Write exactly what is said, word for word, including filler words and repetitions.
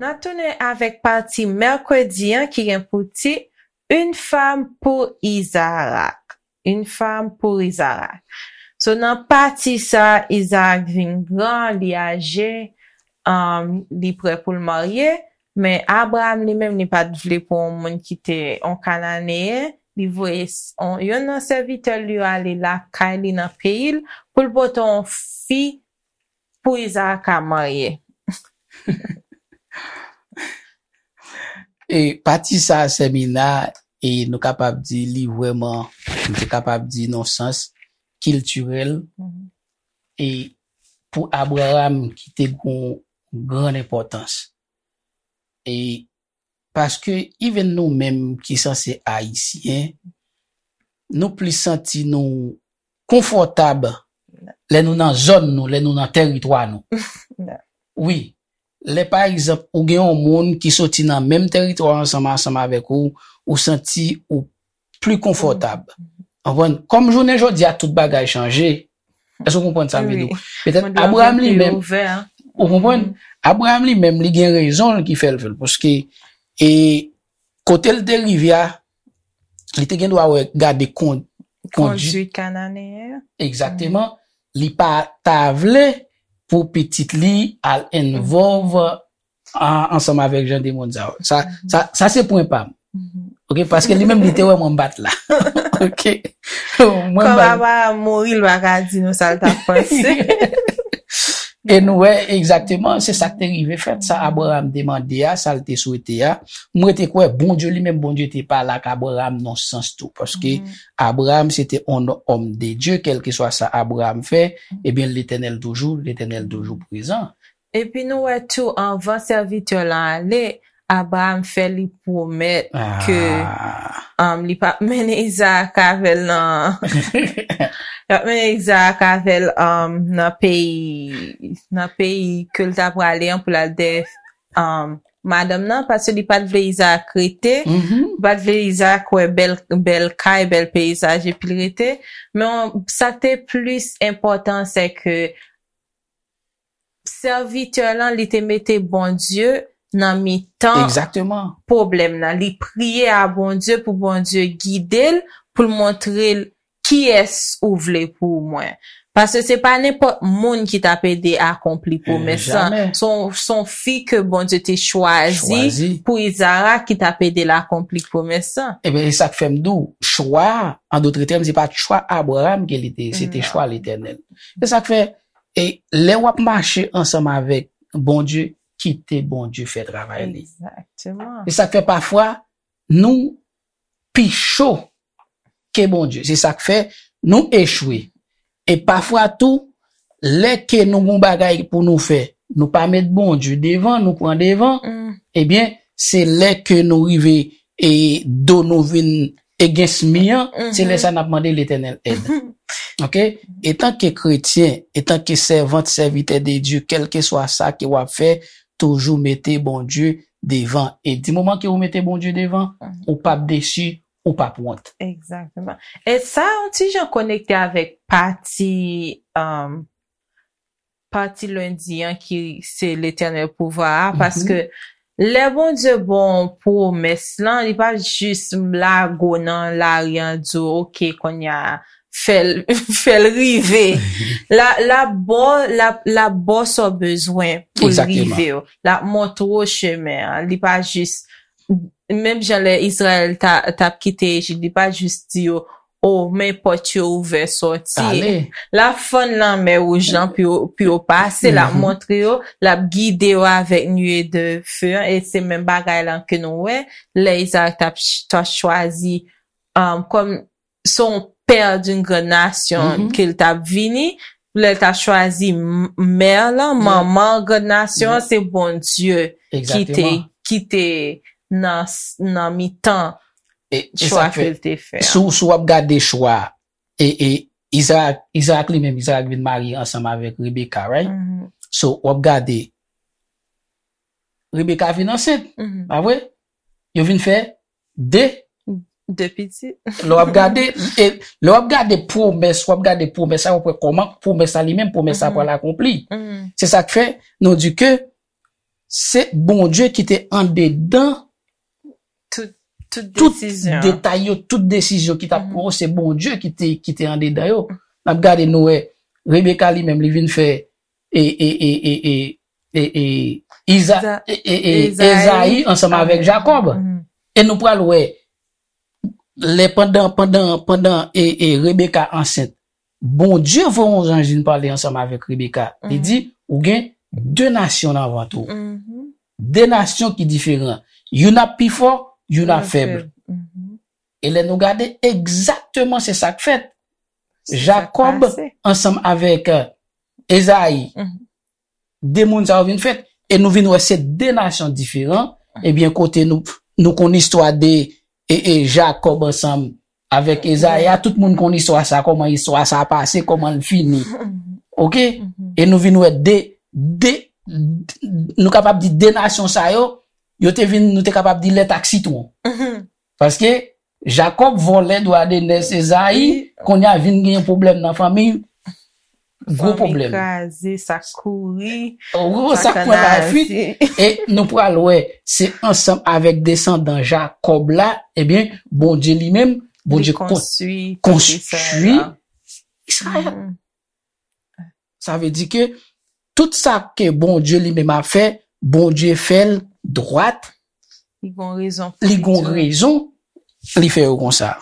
N ap tounen avèk pati mèkredi an ki gen pou tit Une femme pour Isaac. Une femme pour Isaac. So, nan pati sa, Isaac vin gran, li aje, um, li prè pou l marye, men Abraham li menm, li pa t vle pou yon moun ki te yon Kananeyen, li voye s- on- yonn nan sèvitè l yo ale lakay li nan peyi l pou l pote yon fi pou Isaac ka marye. E pati sa a, Sèmina, e nou kapab di li vrèman, nou te kapab di nan sans kiltirèl, Mhm. e pou Abraham ki te gon grann enpòtans. E paske even nou menm ki sanse Ayisyen, nou plis santi nou konfòtab lè nou nan zòn nou, lè nou nan tèritwa nou. Wi, lè pa egzanp ou gen yon moun ki soti nan menm tèritwa ansanm ansanm avèk ou, ou santi ou pli konfòtab. Konprann? Kòm jounen jodi a tout bagay chanje, èske w konprann sa m vle di w? Petèt Abraham li menm, ou konprann? Abraham li menm, li gen rezon l ki fè l fè l, paske e kote l te rive a, li te gen dwa wè gade kon, kondwit Kondwit Kananeyen. Egzakteman. Li pa ta vle pou pitit li al envolve an- ansanm avèk jan de moun sa yo. Sa, sa, sa se pwen pa m. Mhm. Ok, paske li menm li te wè mwen bat la. Ok. Mwen Kòm ba- Abraham mouri, l pa ka di nou sa l t ap panse. E nou wè egzakteman, se sa k te rive fèt, sa Abraham te mande a, sa l te swete a. Mwen te kwè Bondye li menm, Bondye te pale ak Abraham nan sans tou, paske Mhm. Abraham se te yon òm de Dye, kèlkeswa sa Abraham fè, ebyen Letènèl toujou, Letènèl toujou prezan. Epi nou wè tou, anvan sèvitè lan ale, Abraham fè li pwomèt ke Ah, um, li p ap mennen Izaak avè l nan li p ap mennen Izaak avè l um, nan peyi nan peyi ke l ta prale an pou l al dèyè um, madanm nan, paske li pa t vle Izaak rete, mhm. Li pa t vle Izaak wè bèl bèl kay, bèl peyizaj epi l rete. Men sa k te plis enpòtan se ke sèvitè lan li te mete Bondye nan mitan Egzakteman. Pwoblèm nan. Li priye a Bondye pou Bondye gide l, pou l montre l kiyès ou vle pou mwen. Paske se pa nenpòt moun ki t ap ede akonpli pwomès lan. Jamè. Se yon se yon fi ke Bondye te chwazi Chwazi. Pou Izaak ki t ap ede l akonpli pwomès lan. Ebyen, e sa k fè m di w, chwa, an dot tèm, se pa t chwa Abraham ke li te, se te Non. Chwa Letènèl. Se sa k fè, e lè w ap mache ansanm avèk Bondye, kite Bondye fè travay li. Egzakteman. Se sa k fè pafwa, nou pi cho ke Bondye. Se sa k fè nou echwe. E pafwa tou, lè ke nou gon bagay pou nou fè, nou pa met Bondye devan, nou pran devan, Mm. ebyen, se lè ke nou rive e do nou vin against mi an, se lè sa n ap mande Letènèl èd. Ok? Etanke kretyen, etanke sèvant, sèvitè de Dye, kèlkeswa sa ke w ap fè, toujou mete Bondye devan. E di moman ke ou mete Bondye devan, ou p ap desi, ou p ap wont. Egzakteman. E sa yon ti jan konekte avèk pati um, pati lendi an ki se Letènèl pouvwa a, paske lè Bondye ba w pwomès lan, li pa jis lago nan lari an di w, oke, kounye a, fè l fè l rive. La la ba w la la ba w sa w bezwen pou l Egzakteman. Rive w. La montre w chemen an. Li pa jis menm jan lè Izrayèl ta t ap kite Ejip, li pa jis di yo, o men pòt yo ouvè sòti. Ale. La fann lanmè wouj lan pou yo pou yo pase, la montre yo, la gide yo avèk nue de feu an, e se menm bagay lan ke nou wè lè Izaak t ap ch- t ap chwazi um, kòm se yon pè d'une grande nation ke l t ap vini, lè l t ap chwazi m- mè lan, manman grande nation an, se Bondye ki te Egzakteman. Ki te nan s- nan mitan E, e chwa sa k fè, ke l te fè. Si w si w ap gade chwa, e, e Izaak, Izaak li menm, Izaak vin marye ansanm avèk Rebeka, right? Mhm, So, w ap gade, Rebeka vin ansent, mhm. Pa vre? Yo vin fè de, De pitit. Lè w ap gade, e, lè w ap gade pwomès, w ap gade pwomès sa, w ap wè kòman pwomès sa li menm, pwomès sa pral akonpli. Se sa k fè, nou di ke se Bondye ki te andedan Tout, tout tout desizyon. detay yo, tout desizyon ki t ap pran yo, se Bondye ki te, ki te andedan yo. N ap gade, nou wè, Rebeka li menm, li vin fè e, e, e, e, e, e, e, Iza, Iza- e, e, e, Ezayi Ezayi ansanm avèk avèk- Jakòb. Mhm. E nou pral wè, lè pandan, pandan, pandan e, e Rebeka ansent, Bondye voye yon zanj vin pale ansanm avèk Rebeka. Li di, ou gen de nasyon nan vant ou. Mhm. De nasyon ki diferan. Youn ap pi fò, youn ap fèb. Mhm. E lè nou gade, egzakteman se sa k fèt. Se sa k Jakòb pase. Ansanm avèk, euh, Ezayi. Mhm. De moun sa yo vin fèt. E nou vin wè se de nasyon diferan. Ebyen, kote nou, nou konn istwa de e, e Jakòb ansanm avèk Ezayi a, tout moun konn istwa sa, kòman istwa sa pase, kòman l fini. Oke? E nou vin wè de, de, nou kapab di de nasyon sa yo, yo te vin, nou te kapab di lèt ak sitwon. Paske Jakòb vòlè dwa de nès Ezayi, kounye a vin gen pwoblèm nan fanmi, gwo Fanmi pwoblèm. Kraze, sa kouri. Ou sa k pran lafuit, e nou pral wè, se ansanm avèk desandan Jakòb la, ebyen, Bondye li menm, Bondye Li konstwi konstwi peyi Izrayèl. Izrayèl. Sa vle di ke tout sa ke Bondye li menm ap fè, Bondye fè l dwat, Li gon rezon. li gon rezon, li fè yo konsa.